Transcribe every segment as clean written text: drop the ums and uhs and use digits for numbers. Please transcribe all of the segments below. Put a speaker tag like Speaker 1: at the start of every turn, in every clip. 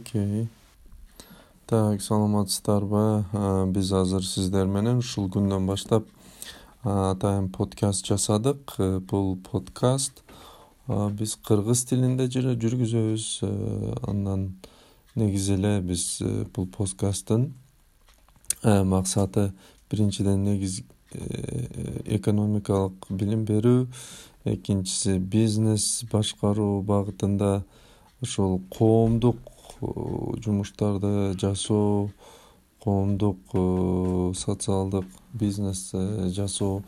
Speaker 1: Окей. Так, саламатсыздарбы? Биз азыр сиздер менен ушул күндөн баштап атайын подкаст жасадык. Бул подкаст биз кыргыз тилинде жүргүзөбүз. Андан негизи эле биз бул подкасттын максаты биринчиден экономикалык билим берүү, экинчиси бизнес башкаруу багытында ошол коомдук жумуштарды жасоо, коомдук социалдык бизнес жасоо.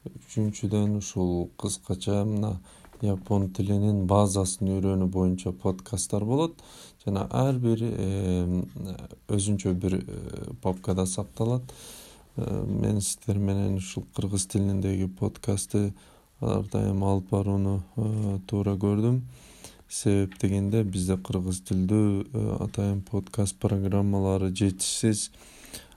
Speaker 1: Үчүнчүдөн ушул кыскача мына япон тилинин базасын үйрөнүү боюнча подкасттар болот жана ар бир өзүнчө бир папкада сакталат. Мен сиздер менен ушул кыргыз тилиндеги подкастты ар дайым алып барууну туура көрдүм. Себеп дегенде бизде кыргыз тилдүү атайын подкаст программалары жетишсиз.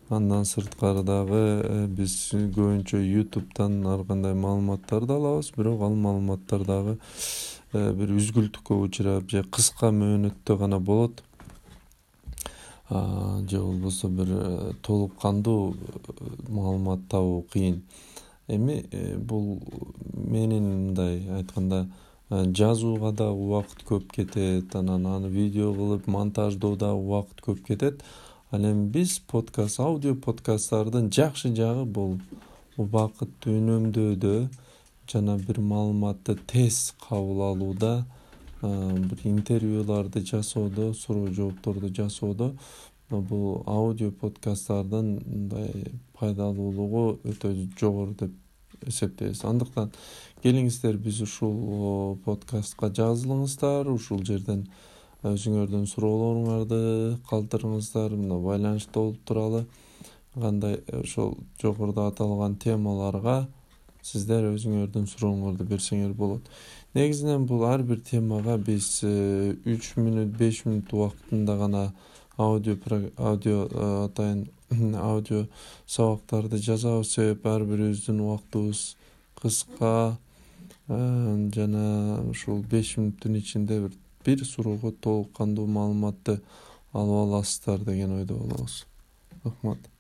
Speaker 1: Андан сырткары дагы биз көбүнчө YouTube'дан ар кандай маалыматтарды алабыз, бирок ал маалыматтар дагы бир үзгүлтүккө учурап же кыска мөөнөттө гана болот. Же болбосо бир толук кандуу маалымат табуу кыйын. Эми бул менин мындай айтканда жазууга дагы убакыт көп кетет, анан аны видео кылып монтаждоодо убакыт көп кетет. Ал эми биз аудио подкасттардын жакшы жагы бул убакытты үнөмдөөдө жана бир маалыматты тез кабыл алууда, бир интервьюларды жасоодо, суроо жоопторду жасоодо бул аудио подкасттардын мындай пайдалуулугу өтө жогору деп эсептейбиз. Андыктан келиңиздер биз ушул подкастка жазылыңыздар, ушул жерден өзүңөрдүн суроолоруңарды калтырыңыздар, мына байланышта болуп туралы. Кандай ошол жогоруда аталган темаларга сиздер өзүңөрдүн сурооңорду берсеңер болот. Негизинен бул ар бир темага биз 3 мүнөт, 5 мүнөт убактында гана аудио сабактарды жазабыз. Себеп ар бирибиздин убактыбыз кыска жана ушул 5 мүнөттүн ичинде бир суроого толук кандуу маалыматты алып аласыздар деген ойдо болобуз. Рахмат.